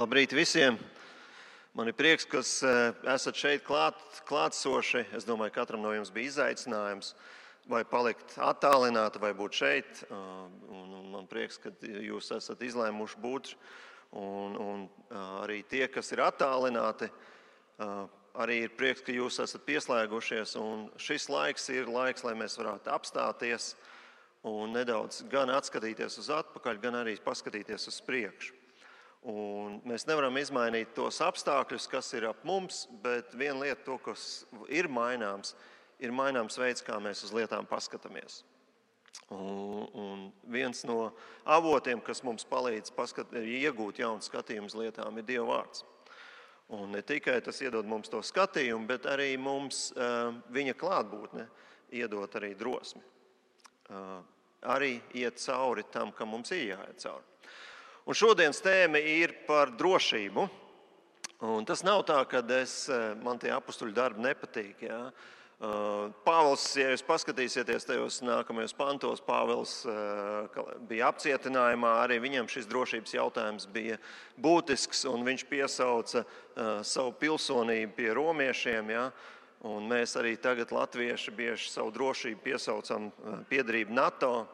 Labrīt visiem! Man ir prieks, ka esat šeit klātsoši. Es domāju, ka katram no jums bija izaicinājums vai palikt attālināti, vai būt šeit. Man prieks, ka jūs esat izlēmuši būt. Un arī tie, kas ir attālināti, arī ir prieks, ka jūs esat pieslēgušies. Un šis laiks ir laiks, lai mēs varētu apstāties un nedaudz gan atskatīties uz atpakaļ, gan arī paskatīties uz priekšu. Un mēs nevaram izmainīt tos apstākļus, kas ir ap mums, bet viena lieta, to, kas ir maināms veids, kā mēs uz lietām paskatāmies. Un viens no avotiem, kas mums palīdz iegūt jaunu skatījumu uz lietām, ir Dieva vārds. Un ne tikai tas iedod mums to skatījumu, bet arī mums viņa klātbūtne iedod arī drosmi. Arī iet cauri tam, kam mums ir jāiet cauri. Un šodienas tēma ir par drošību. Un tas nav tā, ka man tie apustuļu darbi nepatīk. Ja? Pāvils, ja jūs paskatīsieties tajos nākamajos pantos, Pāvils bija apcietinājumā, arī viņam šis drošības jautājums bija būtisks, un viņš piesauca savu pilsonību pie romiešiem. Ja? Un mēs arī tagad latvieši bieži savu drošību piesaucam piederību NATO.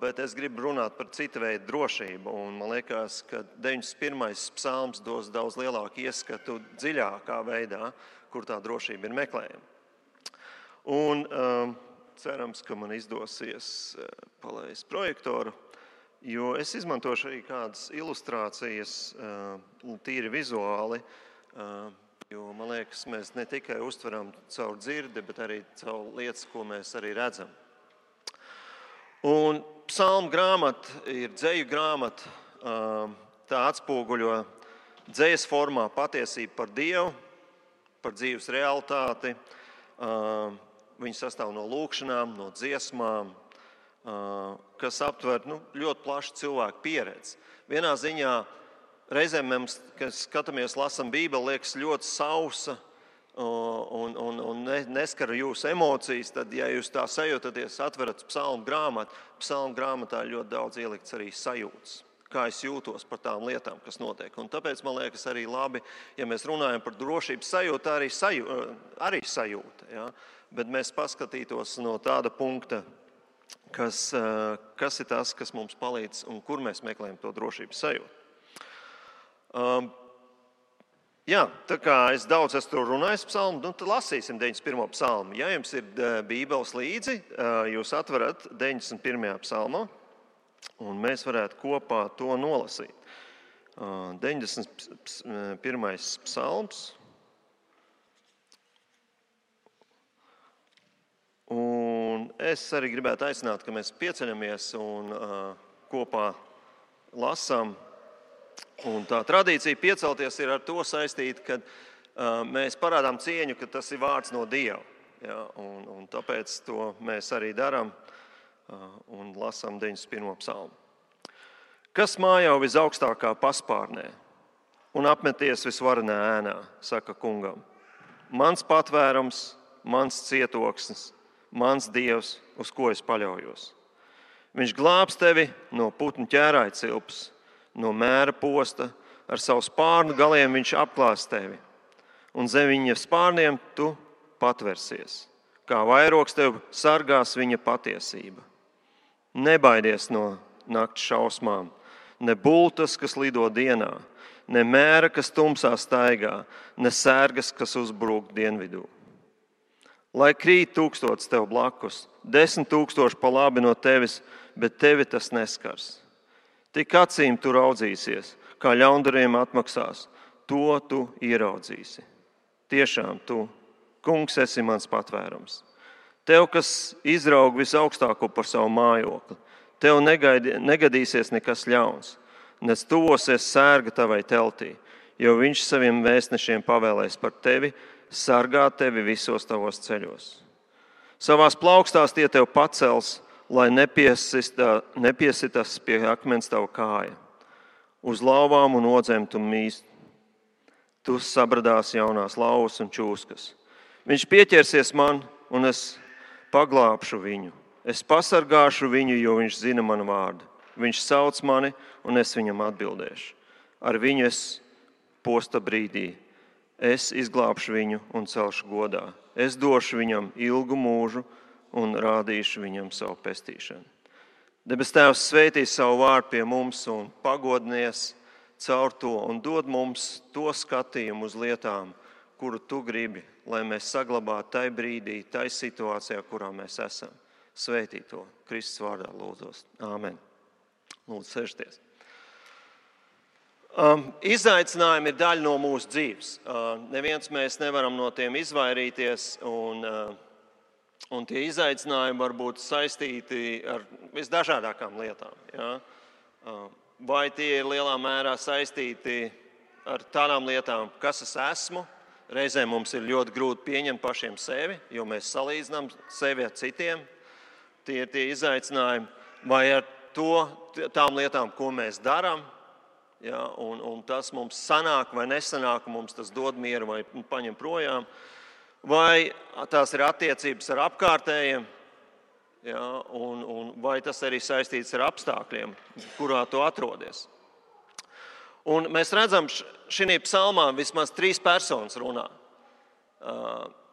Bet es gribu runāt par citu veidu drošību. Un man liekas, ka 91. psalms dos daudz lielāku ieskatu dziļākā veidā, kur tā drošība ir meklējama. Un cerams, ka man izdosies palaist projektoru, jo es izmantošu arī kādas ilustrācijas tīri vizuāli, jo man liekas, mēs ne tikai uztveram caur dzirdi, bet arī caur lietas, ko mēs arī redzam. Un psalmu grāmata ir dzeju grāmata, tā atspoguļo dzejas formā patiesību par Dievu, par dzīves realitāti. Viņi sastāv no lūkšanām, no dziesmām, kas aptver ļoti plašu cilvēku pieredzi. Vienā ziņā reizēm mēs, kad skatāmies, lasam Bībeli, liekas ļoti sausa, un neskar jūsu emocijas, tad, ja jūs tā sajūtaties, atverat psalmu grāmatu, psalmu grāmatā ļoti daudz ielikts arī sajūtas, kā es jūtos par tām lietām, kas notiek. Un tāpēc man liekas arī labi, ja mēs runājam par drošības sajūtu, arī sajūta. Ja? Bet mēs paskatītos no tāda punkta, kas ir tas, kas mums palīdz un kur mēs meklējam to drošības sajūtu. Jā, tā kā es daudz esmu runājis psalmu, tad lasīsim 91. psalmu. Ja jums ir Bībeles līdzi, jūs atverat 91. psalmu, un mēs varētu kopā to nolasīt. 91. psalms. Un es arī gribētu aicināt, ka mēs pieceļamies un kopā lasām. Un tā tradīcija piecelties ir ar to saistīta, ka mēs parādām cieņu, ka tas ir vārds no Dieva. Ja, un tāpēc to mēs arī darām un lasām 91. psalmu. Kas mājā visaugstākā paspārnē un apmeties visvarenā ēnā, saka kungam. Mans patvērums, mans cietoksnis, mans Dievs, uz ko es paļaujos. Viņš glābs tevi no putnu ķērāja cilpas, no mēra posta, ar savu spārnu galiem viņš apklās tevi, un zem viņa spārniem tu patversies, kā vairogs tev sargās viņa patiesība. Nebaidies no nakts šausmām, ne bultas, kas lido dienā, ne mēra, kas tumsā staigā, ne sērgas, kas uzbrūk dienvidū. Lai krīt 1000 tev blakus, 10 000 pa labi no tevis, bet tevi tas neskars. Tik acīm tu raudzīsies, kā ļaundariem atmaksās, to tu ieraudzīsi. Tiešām tu, kungs, esi mans patvērums. Tev, kas izraug visaugstāko par savu mājokli, tev negadīsies nekas ļauns, nec tuvosies sērga tavai teltī, jo viņš saviem vēstnešiem pavēlēs par tevi, sargāt tevi visos tavos ceļos. Savās plaukstās tie tev pacels, lai nepiesitas pie akmens tava kāja. Uz lauvām un odzēm tu mīst. Tu sabradās jaunās lauvas un čūskas. Viņš pieķersies man, un es paglābšu viņu. Es pasargāšu viņu, jo viņš zina manu vārdu. Viņš sauc mani, un es viņam atbildēšu. Ar viņu es posta brīdī. Es izglābšu viņu un celšu godā. Es došu viņam ilgu mūžu un rādīšu viņam savu pestīšanu. Debes Tēvs svētīs savu vārdu pie mums un pagodinies caur to un dod mums to skatījumu uz lietām, kuru tu gribi, lai mēs saglabātu tai brīdī, tai situācijā, kurā mēs esam. Svētī to Kristus vārdā lūdzos. Āmen. Lūdzu, sēžties. Izaicinājumi ir daļa no mūsu dzīves. Neviens mēs nevaram no tiem izvairīties, un tie izaicinājumi var būt saistīti ar visdažādākām lietām. Ja? Vai tie ir lielā mērā saistīti ar tādām lietām, kas es esmu? Reizēm mums ir ļoti grūti pieņemt pašiem sevi, jo mēs salīdzinām sevi ar citiem. Tie ir tie izaicinājumi. Vai ar tām lietām, ko mēs darām, ja, un tas mums sanāk vai nesanāk, mums tas dod mieru vai paņem projām. Vai tās ir attiecības ar apkārtējiem, ja, un vai tas arī saistīts ar apstākļiem, kurā tu atrodies. Un mēs redzam, šī psalmā vismaz 3 personas runā.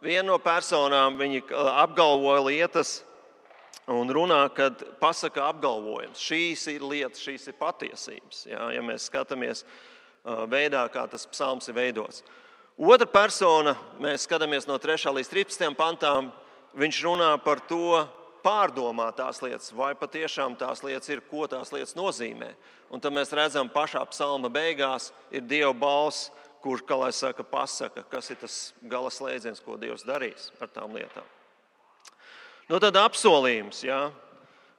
Viena no personām viņi apgalvoja lietas un runā, kad pasaka apgalvojums. Šīs ir lietas, šīs ir patiesības. Ja mēs skatāmies veidā, kā tas psalms ir veidots. Otra persona, mēs skatāmies no 3. līdz 13. pantām, viņš runā par to, pārdomāt tās lietas, vai patiešām tās lietas ir, ko tās lietas nozīmē. Un tad mēs redzam, pašā psalma beigās ir Dieva balss, kurš, kā lai saka, pasaka, kas ir tas gala slēdziens, ko Dievs darīs ar tām lietām. Nu tad apsolījums, ja?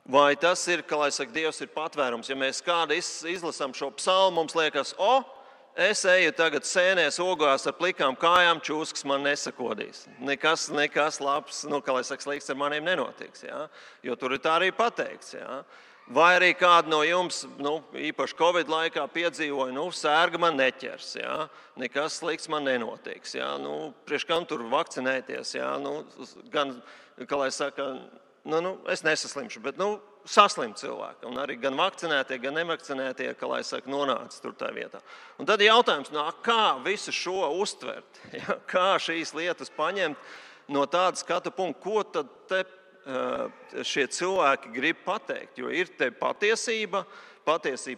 Vai tas ir, kā lai saka, Dievs ir patvērums. Ja mēs kādu izlasām šo psalmu, mums liekas, es eju tagad sēnēs ogās ar plikām kājām, čūskas man nesakodīs. Nekas labs, kā lai saka, slikts ar maniem nenotiks. Ja? Jo tur ir tā arī pateikts. Ja? Vai arī kādu no jums, īpaši Covid laikā piedzīvoja, sērga man neķers. Ja? Nekas slikts man nenotiks. Ja? Priekš kam tur vakcinēties? Ja? Gan, kā lai saka, es nesaslimšu, bet saslim cilvēki. Un arī gan vakcinētie, gan nevakcinētie, kā lai saka, nonāca tur tā vietā. Un tad jautājums, kā visu šo uztvert? Ja? Kā šīs lietas paņemt no tāda skatu punkta? Ko tad te šie cilvēki grib pateikt? Jo ir te patiesība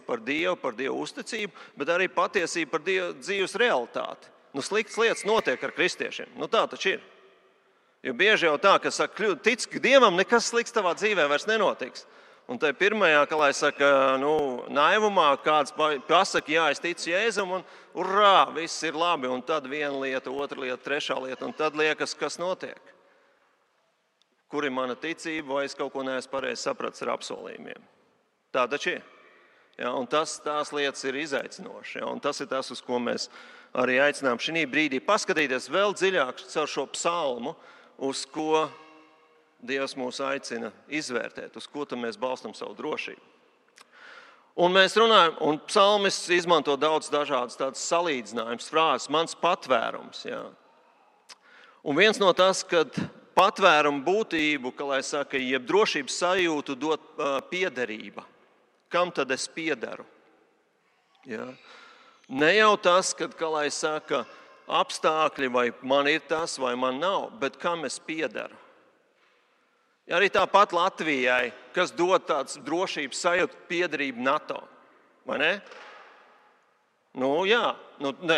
par Dievu uzticību, bet arī patiesība par Dievu dzīves realitāti. Sliktas lietas notiek ar kristiešiem. Tā taču ir. Jo bieži jau tā, ka saka, tic Dievam, nekas slikts tavā dzīvē vairs nenotiks. Un tai pirmajā, kā lai saka, naivumā kāds pasaka, jā, es ticu Jēzum, un urā, viss ir labi. Un tad viena lieta, otra lieta, trešā lieta, un tad liekas, kas notiek. Kur ir mana ticība, vai es kaut ko neesmu pareizi sapratis ar apsolījumiem. Tā taču ir. Ja, un tās lietas ir izaicinošas. Ja, un tas ir tas, uz ko mēs arī aicinām šī brīdī paskatīties vēl dziļāk caur šo psalmu, uz ko Dievs mūs aicina izvērtēt, uz ko mēs balstam savu drošību. Un mēs runājam, un psalmists izmanto daudz dažādas tādas salīdzinājumas, frāzes, mans patvērums. Ja. Un viens no tas, kad patvērumu būtību, kā lai saka, jeb drošības sajūtu dot piederība. Kam tad es piederu? Ja. Ne jau tas, kad, kā lai saka, apstākļi, vai man ir tas, vai man nav, bet kam es piederu. Ja arī tāpat Latvijai, kas dod tāds drošības sajūtu piederību NATO, vai ne? Jā,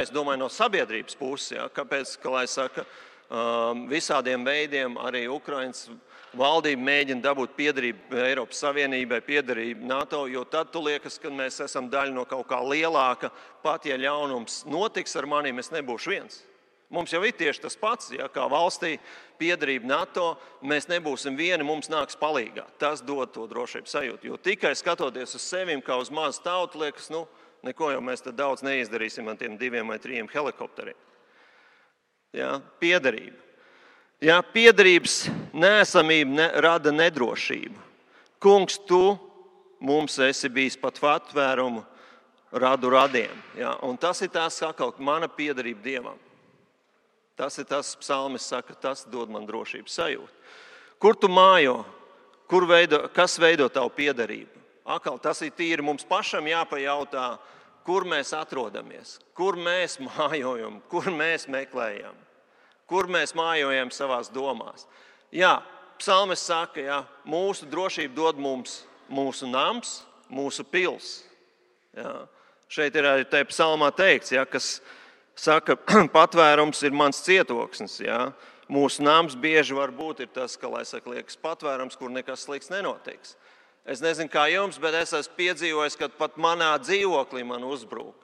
es domāju no sabiedrības puses, ja, kāpēc, kā lai saka, visādiem veidiem arī Ukrainas valdība mēģina dabūt piederību Eiropas Savienībai, piederību NATO, jo tad tu liekas, ka mēs esam daļa no kaut kā lielāka, pat ja ļaunums notiks ar maniem, es nebūšu viens. Mums jau ir tieši tas pats, ja, kā valstī piederība NATO, mēs nebūsim vieni, mums nāks palīgā. Tas dod to drošības sajūtu, jo tikai skatoties uz sevim kā uz mazu tautu, liekas, neko jau mēs tad daudz neizdarīsim ar tiem 2 vai 3 helikopteriem. Ja, piederība. Ja, piederības neesamība rada nedrošību. Kungs, tu mums esi bijis pat patvērumu radu radiem. Ja, un tas ir tās atkal mana piederība Dievam. Tas ir tas, psalmis saka, tas dod man drošības sajūtu. Kur tu mājo? Kas veido tavu piederību? Atkal tas ir tīri mums pašam jāpajautā, kur mēs atrodamies, kur mēs mājojam, kur mēs meklējam, kur mēs mājojam savās domās. Jā, psalmis saka, jā, mūsu drošību dod mums mūsu nams, mūsu pils. Jā. Šeit ir arī tajā psalmā teikts, jā, kas saka, patvērums ir mans cietoksnis. Jā. Mūsu nams bieži var būt ir tas, ka, lai saka, liekas patvērums, kur nekas slikts nenotiks. Es nezinu, kā jums, bet es esmu piedzīvojis, ka pat manā dzīvoklī man uzbrūk.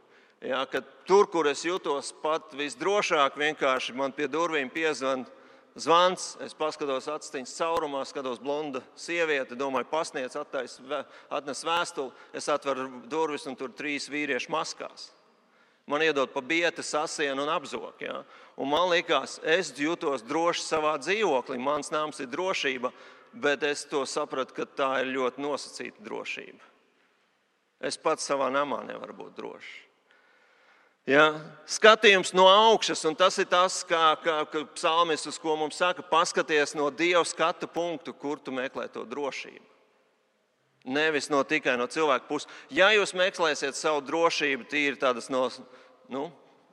Ja, kad tur, kur es jūtos pat visdrošāk, vienkārši man pie durvīm piezvan zvans, es paskatos atstiņas caurumā, skatos blonda sieviete, domāju, pasniedz, atnes vēstuli, es atveru durvis un tur 3 vīrieši maskās. Man iedod pa bieti, sasienu un apzok. Ja? Un man likās, es jūtos droši savā dzīvoklī, mans nams ir drošība, bet es to sapratu, ka tā ir ļoti nosacīta drošība. Es pats savā namā nevaru būt drošs. Ja? Skatījums no augšas, un tas ir tas, kā psalmists, ko mums saka, paskaties no Dieva skatu punktu, kur tu meklē to drošību. Nevis tikai no cilvēka puses. Ja jūs meklēsiet savu drošību, tīri tādas no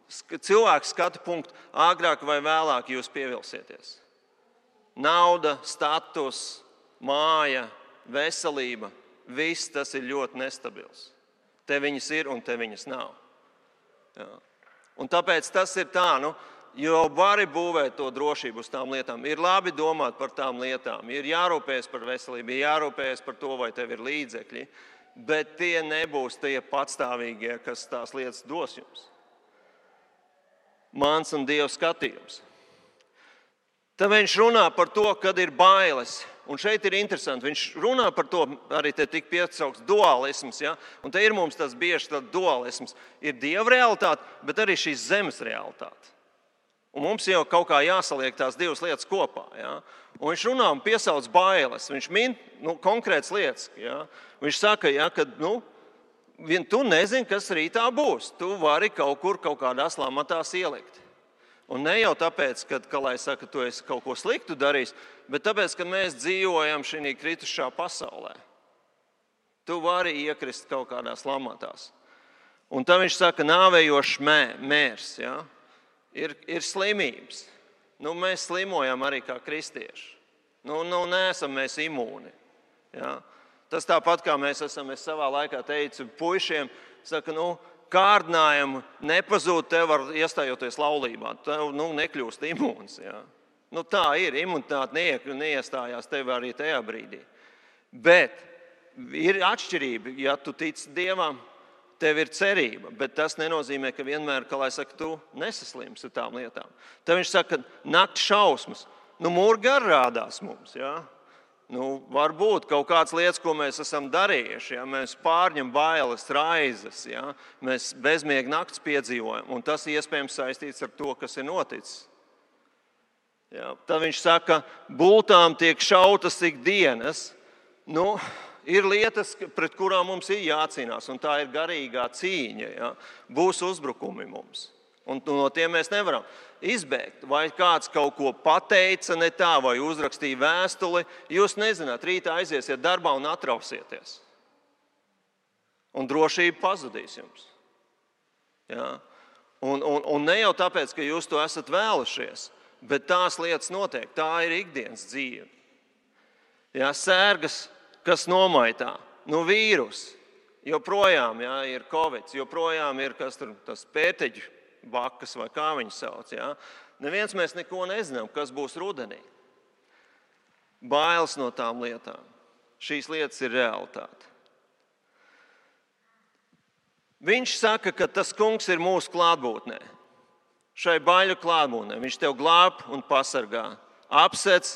cilvēka skatu punktu, agrāk vai vēlāk jūs pievilsieties. Nauda, status, māja, veselība, viss tas ir ļoti nestabils. Te viņas ir un te viņas nav. Jā. Un tāpēc tas ir tā, jo vari būvēt to drošību uz tām lietām. Ir labi domāt par tām lietām, ir jārūpējas par veselību, ir jārūpējas par to, vai tev ir līdzekļi, bet tie nebūs tie patstāvīgie, kas tās lietas dos jums. Mans un Dieva skatījums. Tad viņš runā par to, kad ir bailes. Un šeit ir interesanti, viņš runā par to, arī te tik piesaukts dualisms. Ja? Un te ir mums tas bieži tāds dualisms. Ir Dieva realitāte, bet arī šīs zemes realitāte. Un mums jau kaut kā jāsaliek tās divas lietas kopā. Ja? Un viņš runā un piesauc bailes. Viņš min konkrētas lietas. Ja? Viņš saka, ja, ka tu nezini, kas rītā būs. Tu vari kaut kādās lamatās ielikt. Un ne jau tāpēc, ka lai saka, tu esi kaut ko sliktu darījis, bet tāpēc, ka mēs dzīvojam šī kritušā pasaulē. Tu vari iekrist kaut kādās lamatās. Un tad viņš saka, nāvējošs mērs. Ja? Ir slimības. Mēs slimojam arī kā kristieši. Neesam mēs imūni. Ja? Tas tāpat kā mēs savā laikā teicu puišiem, saka, kārdinājumu nepazūd tev ar iestājoties laulībā. Tev nekļūst imūns. Ja? Tā ir, imunitāte neiestājās tev arī tajā brīdī. Bet ir atšķirība, ja tu tici Dievam, tev ir cerība, bet tas nenozīmē, ka vienmēr, tu nesaslimsi ar tām lietām. Tad viņš saka, ka nakts šausmas. Murgi arī rādās mums. Ja? Varbūt kaut kādas lietas, ko mēs esam darījuši. Ja? Mēs pārņem bailes, raizes. Ja? Mēs bezmiega nakts piedzīvojam. Un tas iespējams saistīts ar to, kas ir noticis. Ja? Tad viņš saka, bultām tiek šautas ikdienas. Ir lietas, pret kurām mums ir jācīnās, un tā ir garīgā cīņa. Ja? Būs uzbrukumi mums, un no tiem mēs nevaram izbēgt. Vai kāds kaut ko pateica ne tā, vai uzrakstīja vēstuli, jūs nezināt, rītā aiziesiet darbā un atrausieties. Un drošība pazudīs jums. Ja? Un ne jau tāpēc, ka jūs to esat vēlušies, bet tās lietas notiek. Tā ir ikdienas dzīve. Ja? Sērgas, kas nomaitā, vīrus, joprojām ir Covid, joprojām ir tas pēteģu bakas vai kā viņi sauc. Ja? Neviens mēs neko nezinām, kas būs rudenī. Bailes no tām lietām. Šīs lietas ir realitāte. Viņš saka, ka tas kungs ir mūsu klātbūtnē. Šai baiļu klātbūtnē. Viņš tev glāb un pasargā. Apsec.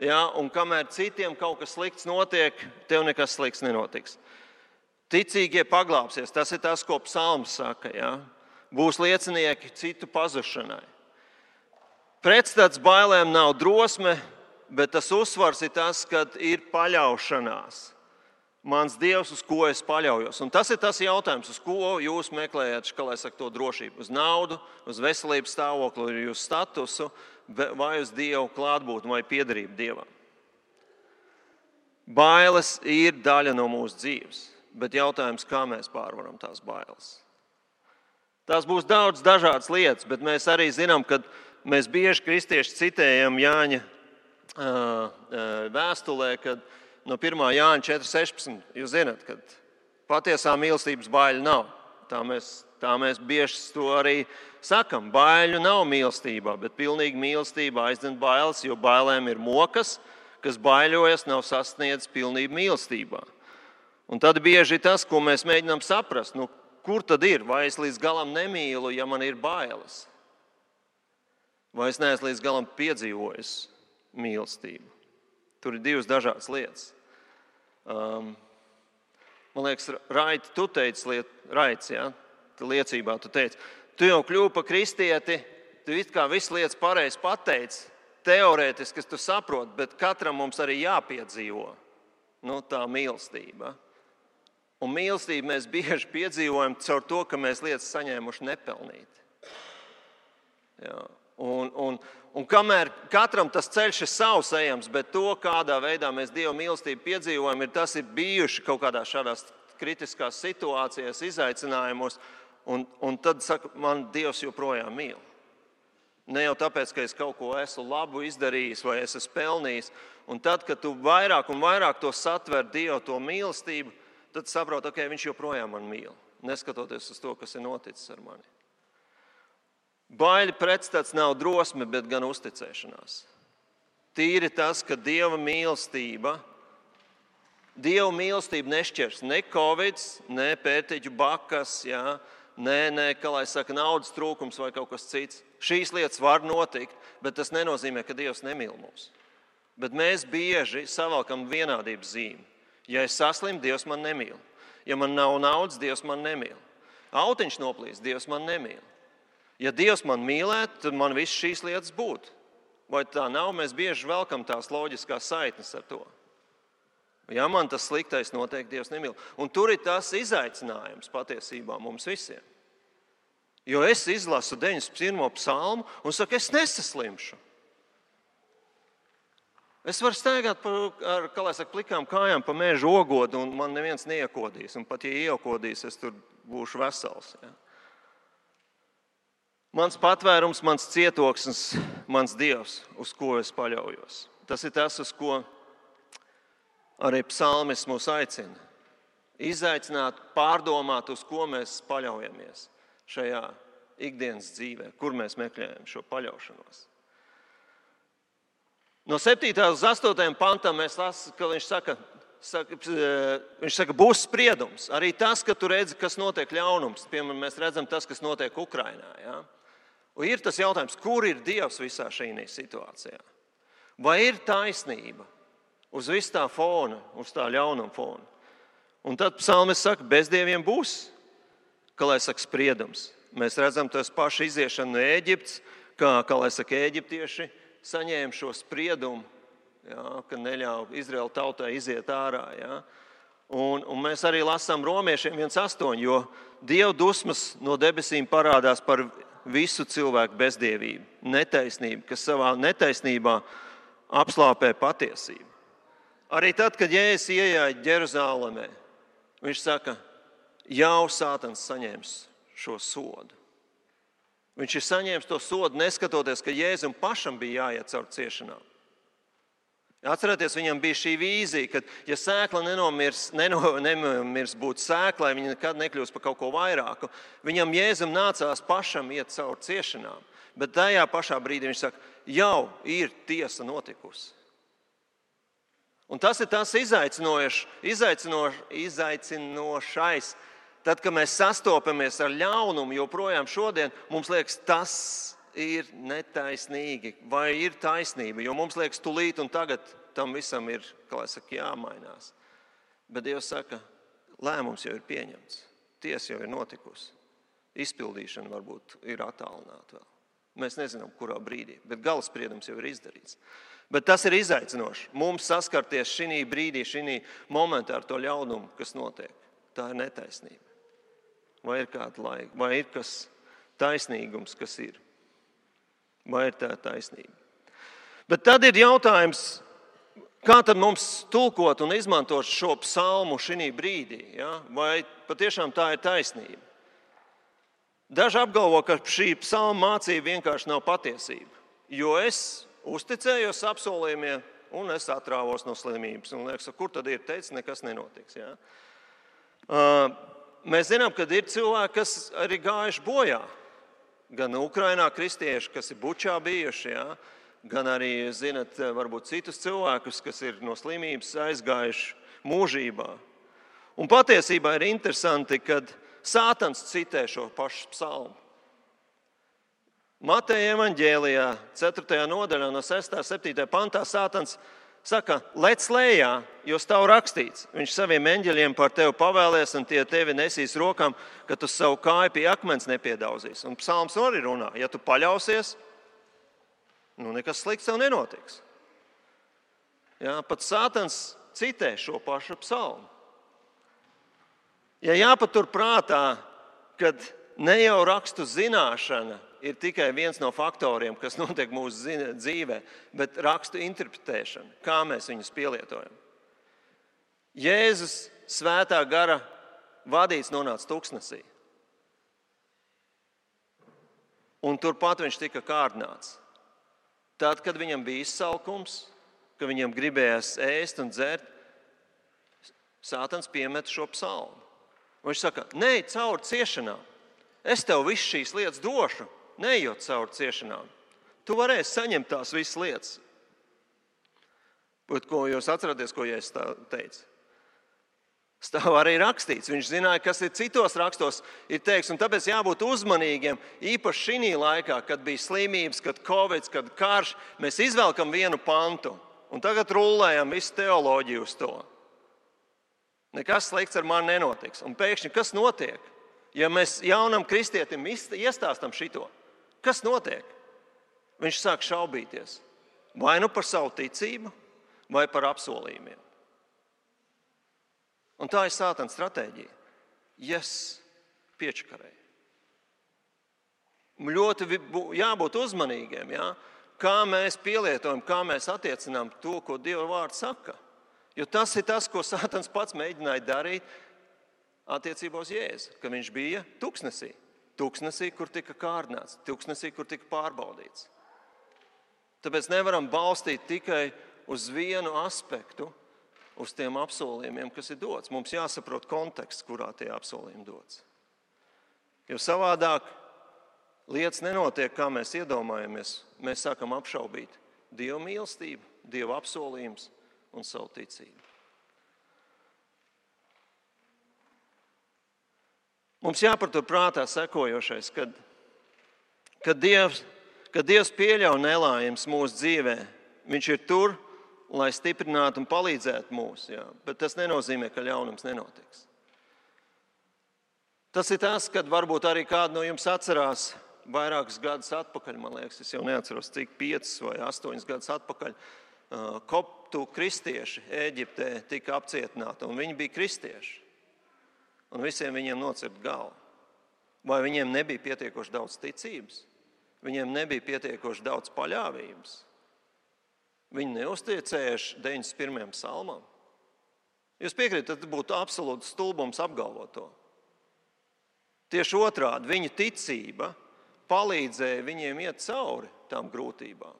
Ja, un kamēr citiem kaut kas slikts notiek, tev nekas slikts nenotiks. Ticīgie paglāpsies. Tas ir tas, ko psalms saka. Ja. Būs liecinieki citu pazušanai. Pretstats bailēm nav drosme, bet tas uzsvars ir tas, kad ir paļaušanās. Mans Dievs, uz ko es paļaujos. Un tas ir tas jautājums, uz ko jūs meklējat, to drošību. Uz naudu, uz veselības stāvokli, uz statusu, vai uz Dievu klātbūtni vai piederību Dievam. Bailes ir daļa no mūsu dzīves. bet jautājums, kā mēs pārvaram tās bailes. Tās būs daudz dažādas lietas, bet mēs arī zinām, ka mēs bieži kristieši citējam Jāņa vēstulē, kad no 1. Jāņa 4.16. Jūs zināt, ka patiesā mīlestības baiļu nav. Tā mēs bieži to arī sakam. Baiļu nav mīlestībā, bet pilnīga mīlestība aizdzen bailes, jo bailēm ir mokas, kas baiļojas, nav sasniedzis pilnību mīlestībā. Un tad bieži tas, ko mēs mēģinām saprast, kur tad ir? Vai es līdz galam nemīlu, ja man ir bailes? Vai es neesmu līdz galam piedzīvojis mīlestību? Tur ir divas dažādas lietas. Man liekas, Raiti, tu teici, liecībā tu teici, tu jau kļuvi par kristieti, tu it kā visu lietas pareizi pateici, teorētiski, kas tu saproti, bet katram mums arī jāpiedzīvo tā mīlestība. Un mīlestību mēs bieži piedzīvojam caur to, ka mēs lietas saņēmuši nepelnīti. Jā. Un kamēr katram tas ceļš ir savs ejams, bet to, kādā veidā mēs Dieva mīlestību piedzīvojam, tas ir bijuši kaut kādās šādās kritiskās situācijās, izaicinājumos, un tad saka, man Dievs joprojām mīl. Ne jau tāpēc, ka es kaut ko esmu labu izdarījis vai es esmu pelnījis. Un tad, kad tu vairāk un vairāk to satver Dievu, to mīlestību, tad saproti, ka viņš joprojām man mīl, neskatoties uz to, kas ir noticis ar mani. Baiļu pretstats nav drosme, bet gan uzticēšanās. Tīri tas, ka Dieva mīlestība nešķirs ne Covid, ne pērtiķu bakas, ne, kā lai saka, naudas trūkums vai kaut kas cits. Šīs lietas var notikt, bet tas nenozīmē, ka Dievs nemīl mūs. Bet mēs bieži savalkam vienādības zīmi. Ja es saslimu, Dievs man nemīl. Ja man nav naudas, Dievs man nemīl. Autiņš noplīst, Dievs man nemīl. Ja Dievs man mīlētu, tad man viss šīs lietas būtu. Vai tā nav? Mēs bieži velkam tās loģiskās saitnes ar to. Ja man tas sliktais notiek, Dievs nemīl. Un tur ir tas izaicinājums patiesībā mums visiem. Jo es izlasu 91. psalmu un saku, es nesaslimšu. Es varu staigāt ar, kā lai saka, plikām kājām pa meža ogodu un man neviens neiekodīs. Un pat ja iekodīs, es tur būšu vesels. Ja? Mans patvērums, mans cietoksnis, mans Dievs, uz ko es paļaujos. Tas ir tas, uz ko arī psalmis mūs aicina. Izaicināt, pārdomāt, uz ko mēs paļaujamies šajā ikdienas dzīvē, kur mēs meklējam šo paļaušanos. No 7. uz 8. pantam mēs lasām, ka viņš saka, būs spriedums. Arī tas, ka tu redzi, kas notiek ļaunums. Piemēram, mēs redzam tas, kas notiek Ukrainā. Ja? Un ir tas jautājums, kur ir Dievs visā šī situācijā? Vai ir taisnība uz visu tā fona, uz tā ļaunuma fona? Un tad psalmis saka, bez dieviem būs, kā lai saka, spriedums. Mēs redzam tos pašu iziešanu no Ēģiptes, kā lai saka, ēģiptieši saņēma šo spriedumu, ka neļauj Izraēla tautai iziet ārā. Ja? Un mēs arī lasām Romiešiem 1.8, jo Dieva dusmas no debesīm parādās par visu cilvēku bezdievību, netaisnību, kas savā netaisnībā apslāpē patiesību. Arī tad, kad Jēzus iejāja Jeruzalemē, viņš saka, jau Sātans saņems šo sodu. Viņš ir saņēmis to sodu, neskatoties, ka Jēzum pašam bija jāiet caur ciešanām. Atcerieties, viņam bija šī vīzija, ka ja sēkla nenomirs būt sēklai, viņa nekad nekļūs par kaut ko vairāku. Viņam Jēzum nācās pašam iet caur ciešanām. Bet tajā pašā brīdī viņš saka, jau ir tiesa notikusi. Un tas ir tas izaicinošais. Tad, kad mēs sastopamies ar ļaunumu, joprojām šodien, mums liekas, tas ir netaisnīgi vai ir taisnība. Jo mums liekas, tūlīt un tagad tam visam ir, kā lai saka, jāmainās. Bet Dievs saka, lēmums jau ir pieņemts. Tiesa jau ir notikusi. Izpildīšana varbūt ir attālināta vēl. Mēs nezinām, kurā brīdī, bet galaspriedums jau ir izdarīts. Bet tas ir izaicinoši. Mums saskarties šī brīdī, šī momentā ar to ļaunumu, kas notiek. Tā ir netaisnība. Vai ir kāda laika, vai ir kas taisnīgums, kas ir? Vai ir tā taisnība? Bet tad ir jautājums, Kā tad mums tulkot un izmantot šo psalmu šī brīdī? Ja? Vai patiešām tā ir taisnība? Daži apgalvo, ka šī psalma mācība vienkārši nav patiesība, jo es uzticējos apsolījumiem un es atrāvos no slimības. Un liekas, kur tad ir teicis, nekas nenotiks. Ja? Mēs zinām, ka ir cilvēki, kas arī gājuši bojā. Gan Ukrainā kristieši, kas ir Bučā bijuši, ja? Gan arī, zinat, varbūt citus cilvēkus, kas ir no slimības aizgājuši mūžībā. Un patiesībā ir interesanti, kad Sātans citē šo pašu psalmu. Mateja evaņģēlijā 4. nodaļā no 6. 7. pantā Sātans saka, lec lejā, jo stāv rakstīts. Viņš saviem eņģeļiem par tevi pavēlēs un tie tevi nesīs rokām, ka tu savu kāju pie akmens nepiedauzīs. Un psalms arī runā, ja tu paļausies, nekas slikts tev nenotiks. Jā, pat Sātans citē šo pašu psalmu. Ja jāpatur prātā, kad ne jau rakstu zināšana ir tikai viens no faktoriem, kas notiek mūsu dzīvē, bet rakstu interpretēšana, kā mēs viņus pielietojam. Jēzus svētā gara vadīts nonāca tuksnesī. Un turpat viņš tika kārdināts. Tad, kad viņam bija izsalkums, kad viņam gribējās ēst un dzert, Sātans piemet šo psalmu. Viņš saka, neej cauri ciešanām. Es tev visu šīs lietas došu, neejot cauri ciešanām. Tu varēsi saņemt tās visas lietas. Bet ko jūs atceraties, ko Jēzus teica? Stāv arī rakstīts. Viņš zināja, kas ir citos rakstos ir teikts, un tāpēc jābūt uzmanīgiem. Īpaši šī laikā, kad bija slimības, kad Covid, kad karš, mēs izvelkam vienu pantu un tagad rullējam visu teoloģiju uz to. Nekas slikts ar mani nenotiks. Un pēkšņi, kas notiek? Ja mēs jaunam kristietim iestāstam šito, kas notiek? Viņš sāk šaubīties. Vai nu par savu ticību, vai par apsolījumiem. Un tā ir Sātana stratēģija. Piečakarēji. Ļoti jābūt uzmanīgiem, ja? Kā mēs pielietojam, kā mēs attiecinām to, ko Dieva vārds saka. Jo tas ir tas, ko Sātans pats mēģināja darīt attiecībā uz Jēzu, ka viņš bija tuksnesī. Tuksnesī, kur tika kārdināts, tuksnesī, kur tika pārbaudīts. Tāpēc nevaram balstīt tikai uz vienu aspektu, uz tiem apsolījumiem, kas ir dots. Mums jāsaprot konteksts, kurā tie apsolījumi dots. Jo savādāk lietas nenotiek, kā mēs iedomājamies. Mēs sākam apšaubīt Dieva mīlestību, Dieva apsolījumus un savu ticību. Mums jāpatur prātā sekojošais, kad Dievs pieļauj nelaimes mūsu dzīvē, viņš ir tur, lai stiprinātu un palīdzētu mums, bet tas nenozīmē, ka ļaunums nenotiks. Tas ir tas, kad varbūt arī kādu no jums atcerās vairākus gadus atpakaļ, man liekas, es jau neatceros, cik 5 vai 8 gadus atpakaļ, koptu kristieši Ēģiptē tika apcietināti, un viņi bija kristieši. Un visiem viņiem nocirta galva. Vai viņiem nebija pietiekoši daudz ticības? Viņiem nebija pietiekoši daudz paļāvības? Viņi neuzticējuši 91. psalmam? Jūs piekrītat, tad būtu absolūts stulbums apgalvot to. Tieši otrādi, viņu ticība palīdzēja viņiem iet cauri tām grūtībām.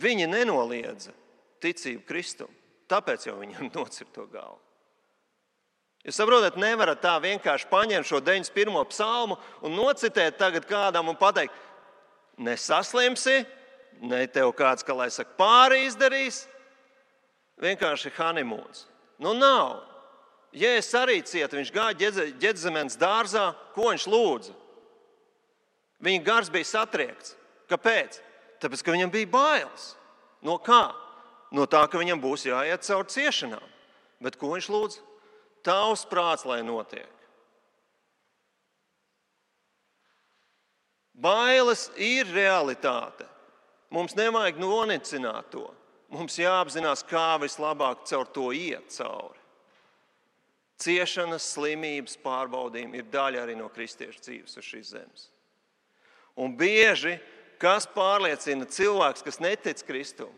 Viņi nenoliedza ticību Kristum, tāpēc jau viņam nocirta to galvu. Jūs saprotat, nevarat tā vienkārši paņemt šo 91. psalmu un nocitēt tagad kādam un pateikt, nesaslimsi, ne tev kāds, kā lai saka, pāri izdarīs, vienkārši honeymoons. Nav. Jēzus arī cieta, viņš gāja Ģedzemenes dārzā, ko viņš lūdza? Viņa gars bija satriekts. Kāpēc? Tāpēc, ka viņam bija bailes. No kā? No tā, ka viņam būs jāiet cauri ciešanām. Bet ko viņš lūdz? Tavs prāts, lai notiek. Bailes ir realitāte. Mums nevajag nonicināt to. Mums jāapzinās, kā vislabāk caur to iet cauri. Ciešanas, slimības, pārbaudījumi ir daļa arī no kristiešu dzīves uz šīs zemes. Un bieži, kas pārliecina cilvēks, kas netic Kristum,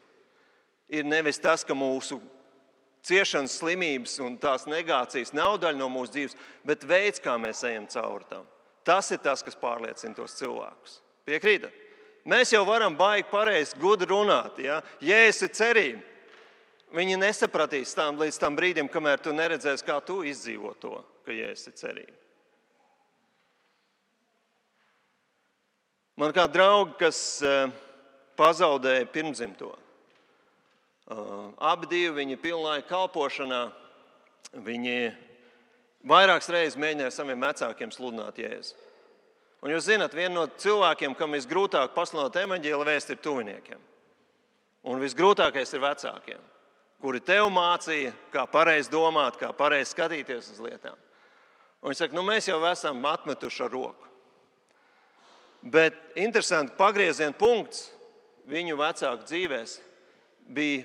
ir nevis tas, ka mūsu ciešanas, slimības un tās negācijas nav daļa no mūsu dzīves, bet veids, kā mēs ejam cauri tam. Tas ir tas, kas pārliecina tos cilvēkus. Piekrītat? Mēs jau varam baigi pareizi, gudri runāt. Ja? Jēzus ir cerība. Viņi nesapratīs līdz tam brīdim, kamēr tu neredzēsi, kā tu izdzīvo to, ka Jēzus ir cerība. Man kā draugi, kas pazaudēja pirmdzimto. Abi divi viņi pilnlaika kalpošanā, viņi vairākas reizes mēģināja saviem vecākiem sludināt Jēzu. Un jūs zināt, viena no cilvēkiem, kam visgrūtāk pasludināt evaņģēlija vēsti, ir tuviniekiem. Un visgrūtākais ir vecākiem, kuri tev mācīja, kā pareizi domāt, kā pareizi skatīties uz lietām. Un viņi saka, mēs jau esam atmetuši ar roku. Bet interesanti, pagrieziena punkts viņu vecāku dzīvēs bija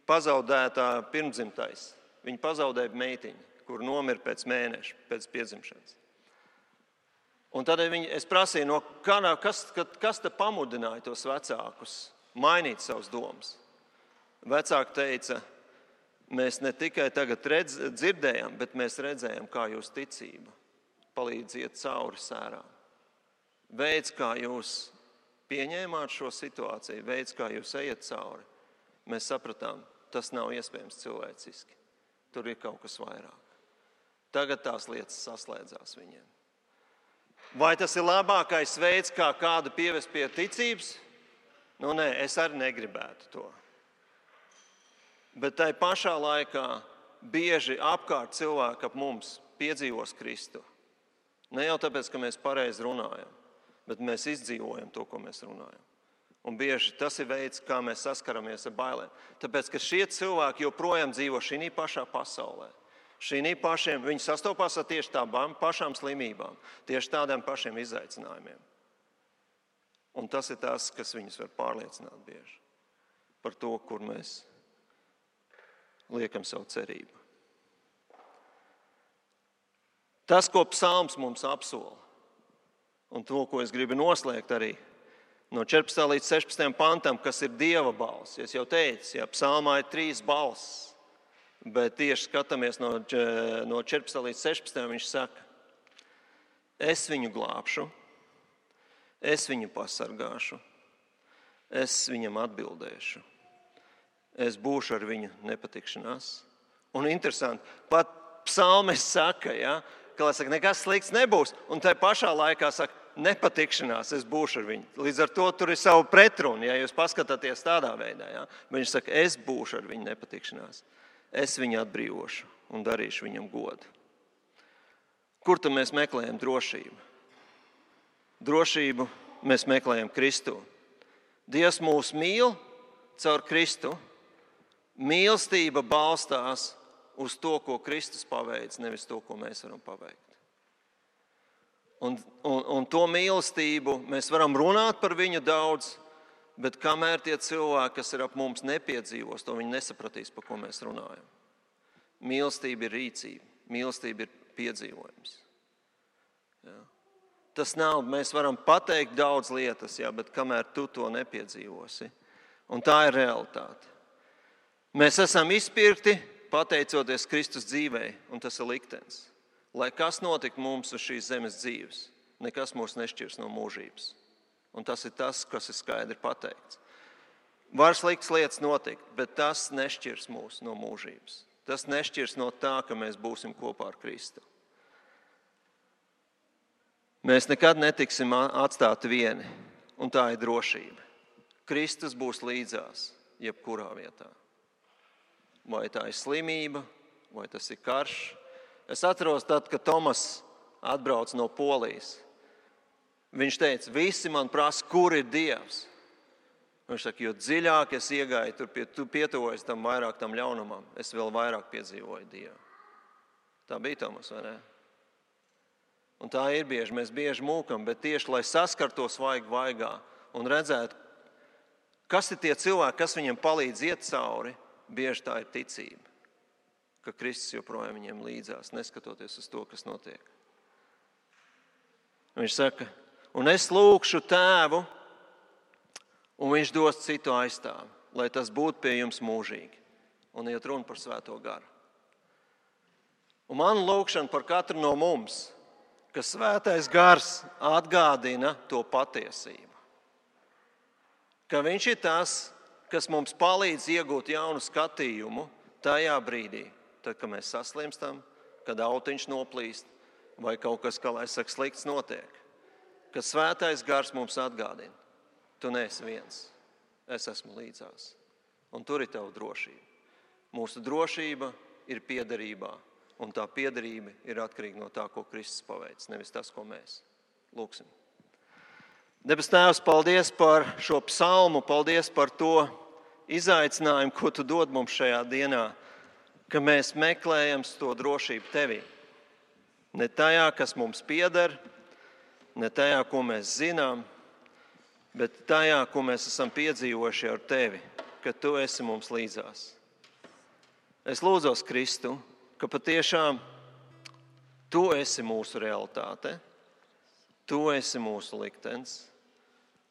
pazaudētā pirmdzimtais. Viņi pazaudēja meitiņu, kur nomira pēc mēneša, pēc piedzimšanas. Un tad es prasīju, kas te pamudināja tos vecākus mainīt savus domas. Vecāki teica, mēs ne tikai tagad dzirdējām, bet mēs redzējām, kā jūs ticība palīdz iet cauri sērām. Veids, kā jūs pieņēmāt šo situāciju, veids, kā jūs ejat cauri, mēs sapratām, tas nav iespējams cilvēciski. Tur ir kaut kas vairāk. Tagad tās lietas saslēdzās viņiem. Vai tas ir labākais veids, kā kādu pievest pie ticības? Nē, es arī negribētu to. Bet tai pašā laikā bieži apkārt cilvēki ap mums piedzīvos Kristu. Ne jau tāpēc, ka mēs pareizi runājam, bet mēs izdzīvojam to, ko mēs runājam. Un bieži tas ir veids, kā mēs saskaramies ar bailēm. Tāpēc, ka šie cilvēki joprojām dzīvo šī pašā pasaulē. Viņi sastopās ar tieši tādām pašām slimībām, tieši tādiem pašiem izaicinājumiem. Un tas ir tas, kas viņus var pārliecināt bieži par to, kur mēs liekam savu cerību. Tas, ko psalms mums apsola, un to, ko es gribu noslēgt arī no 14. līdz 16. pantam, kas ir Dieva balss. Es jau teicu, psalmā ir 3 balss. Bet tieši skatāmies no 14. līdz 16. viņš saka, es viņu glābšu, es viņu pasargāšu, es viņam atbildēšu, es būšu ar viņu nepatikšanās. Un interesanti, pat psalmis saka, ka nekas slikts nebūs, un tai pašā laikā saka, nepatikšanās, es būšu ar viņu. Līdz ar to tur ir savu pretrunu, ja jūs paskatāties tādā veidā. Viņš saka, es būšu ar viņu nepatikšanās. Es viņu atbrīvošu un darīšu viņam godu. Kur tad mēs meklējam drošību? Drošību mēs meklējam Kristu. Dievs mūs mīl caur Kristu. Mīlestība balstās uz to, ko Kristus paveic, nevis to, ko mēs varam paveikt. Un to mīlestību mēs varam runāt par viņu daudz, bet kamēr tie cilvēki, kas ir ap mums, nepiedzīvos, to viņi nesapratīs, par ko mēs runājam. Mīlestība ir rīcība, mīlestība ir piedzīvojums. Tas nav, mēs varam pateikt daudz lietas, bet kamēr tu to nepiedzīvosi. Un tā ir realitāte. Mēs esam izpirkti pateicoties Kristus dzīvei, un tas ir liktenis. Lai kas notika mums uz šīs zemes dzīves, nekas mūs nešķirs no mūžības. Un tas ir tas, kas ir skaidri pateikts. Var sliktas lietas notikt, bet tas nešķirs mūs no mūžības. Tas nešķirs no tā, ka mēs būsim kopā ar Kristu. Mēs nekad netiksim atstāti vieni, un tā ir drošība. Kristus būs līdzās, jebkurā vietā. Vai tā ir slimība, vai tas ir karš. Es atceros tad, kad Tomas atbrauc no Polijas. Viņš teica, visi man prasa, kur ir Dievs. Viņš saka, jo dziļāk es iegāju, tu pietuvojies tam vairāk tam ļaunumam, es vēl vairāk piedzīvoju Dievu. Tā bija Tomas, vai ne? Un tā ir bieži, mēs bieži mūkam, bet tieši, lai saskartos vaigā un redzētu, kas ir tie cilvēki, kas viņiem palīdz iet cauri, bieži tā ir ticība, ka Kristus joprojām viņiem līdzās, neskatoties uz to, kas notiek. Viņš saka, un es lūgšu Tēvu, un viņš dos citu aizstāvi. lai tas būtu pie jums mūžīgi. Un iet runa par Svēto garu. Un man lūgšana par katru no mums, ka Svētais gars atgādina to patiesību. Ka viņš ir tas, kas mums palīdz iegūt jaunu skatījumu tajā brīdī, tad, kad mēs saslimstam, kad autiņš noplīst vai kaut kas, kā lai saka, slikts notiek. Ka Svētais gars mums atgādina. Tu neesi viens, es esmu līdzās. Un tur ir tava drošība. Mūsu drošība ir piederībā, un tā piederība ir atkarīga no tā, ko Kristus paveic, nevis tas, ko mēs. Lūksim. Debes Tēvs, paldies par šo psalmu, paldies par to izaicinājumu, ko tu dod mums šajā dienā, ka mēs meklējam to drošību tevī. Ne tajā, kas mums pieder, ne tajā, ko mēs zinām, bet tajā, ko mēs esam piedzīvojuši ar tevi, ka tu esi mums līdzās. Es lūdzos, Kristu, ka patiešām tu esi mūsu realitāte, tu esi mūsu liktenis,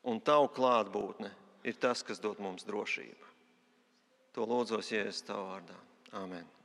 un tavu klātbūtne ir tas, kas dod mums drošību. To lūdzos, Jēzus, tavā vārdā. Āmen.